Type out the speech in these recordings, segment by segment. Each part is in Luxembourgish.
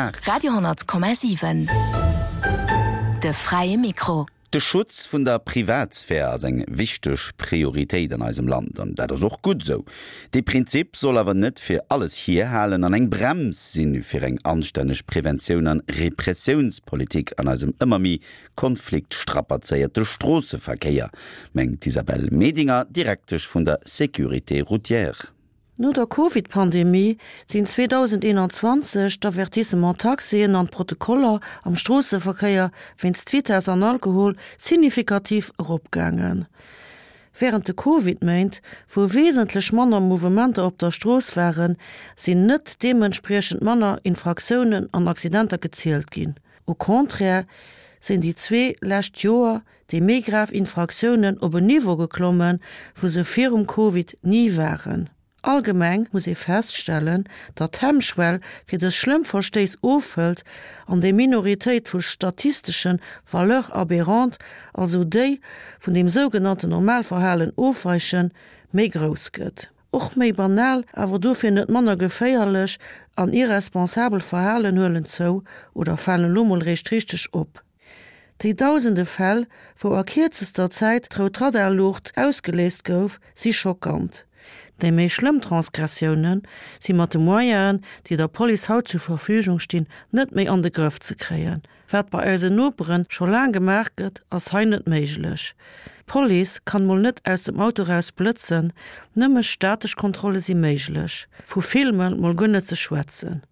8. Radio 10,7 De fräie Mikro. De Schutz vun der Privatsphär ass eng wichteg Prioritéit an eisem Land, an dat ass och gutt esou. Dee Prinzip soll awer net fir alles hierhalen an eng Brems sinn fir eng anstänneg Preventioun an Repressiounspolitik an eisem ëmmer méi konfliktstrapazéierte Stroosseverkéier, mengt d'Isabelle Medinger, Direktesch vun der Sécurité routière. No der Covid-Pandemie sinn 2021 d'Avertissements taxéen an d'Protokoller am Stroosseverkéier wéinst Vitess an Alkohol signifikativ eropgaangen. Wärend de Covid-Méint, wou wesentlech manner Mouvementer op der Strooss waren, sinn net deementspriechend manner Infraktiounen an Accidenter gezielt ginn. Au contraire sinn déi zwee lescht Joer déi méi grav Infraktiounen op en Niveau geklommen, wou se virum Covid ni waren. Allgemeng muss ee feststellen, datt d'Hemmschwell fir dës schlëmm Verstéiss ofhëlt an déi Minoritéit vu statistesche Valeurs aberrantes, also déi vun dem sougenannten Normalverhalen ofweichen, méi grouss gëtt. Och méi banal, awer dofir net manner geféierlech an irresponsabel Verhalen huelen zou oder falen elo mol réischt richteg op. Déi dausende Fäll, wou a kierzester Zäit d'rout Radarluucht ausgeléist gouf, si schockant. Déi méi schlëmm Transgressioune si mat de Moyenen, déi der Police haut zur Verfügung stinn, net méi an de Grëff ze kréien. Wat bei eisen Nopere scho laang gemaach gëtt, ass hei net méiglech. D'Police kann mol net aus dem Auto raus blëtzen, nëmme statesch Kontrolle si méiglech. Vu Filme mol guer net ze schwätzen.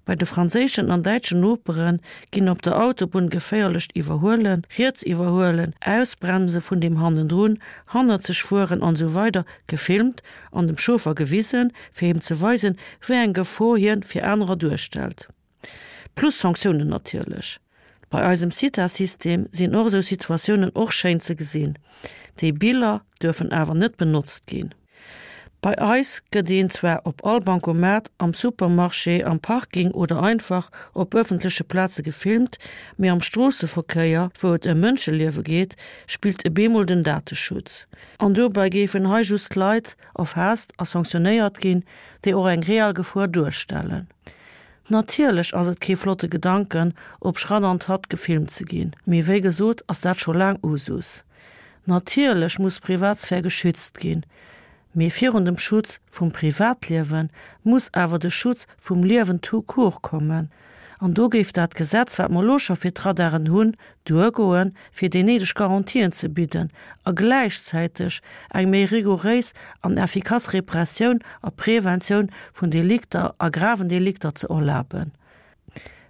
Bei de franséischen an däitschen Nopere ginn op der Autobunn geféierlecht Iwwerhuelen, riets iwwerhuelen, Ausbremse vun deem hannendrun, hannerzeg fueren an esou weider gefilmt an dem Chauffer gewisen, fir him ze weisen, wéi eng Gefor hien fir anerer duerstellt. Plus Sanktiounen natierlech. Bei eisem CITA-System sinn och esou Situatiounen och schéin ze gesinn. Déi Biller duerfen awer net benotzt ginn. Bei eis gëtt een zwar op all Bancomat, am Supermarché, am Parking oder einfach op ëffentleche Plaze gefilmt, mee am Stroosseverkéier, wou et ëm Mënscheliewe geet, spillt e bemol den Dateschutz. An dobäi géifen hei just Leit erfaasst a sanktionéiert ginn, déi och eng real Gefor duerstellen. Natierlech ass et kee flotte Gedanken, op Schratt an Tratt gefilmt ze ginn, mee wéi gesot ass dat scho laang Usus. Natierlech muss d'Privatsphär geschützt ginn, mee virun dem Schutz vum Privatliewe muss awer de Schutz vum Liewen tout court kommen. An do géif dat Gesetz, wat mer elo scho fir d'Radaren hunn, duergoen, fir déi néideg Garantien ze bidden a gläichzäiteg eng méi rigouréis an effikass Repressioun a Preventioun vun Delikter a graven Delikter ze erlaben.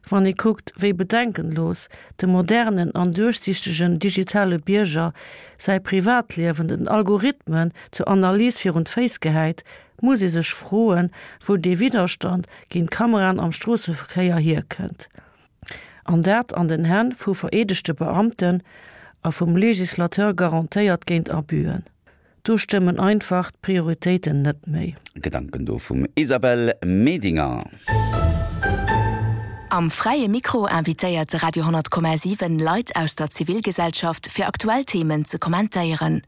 Wann ee kuckt, wéi bedenkenlos de modernen an duerchsichtegen digitale Bierger säi Privatliewen den Algorithmen zur Analys virun d'Féiss gehäit, muss ee sech froen, wou dee Widderstand géint Kameraen am Stroosseverkéier hierkënnt. An dat an den Hänn vu vereedegte Beamten a vum Législateur garantéiert géint Abüen. Do stëmmen einfach d'Prioritéiten net méi. Gedanken do vum Isabelle Medinger. Am Fräie Mikro invitéiert de Radio 10,7 Leit aus der Zivilgesellschaft fir aktuell Themen ze kommentéieren.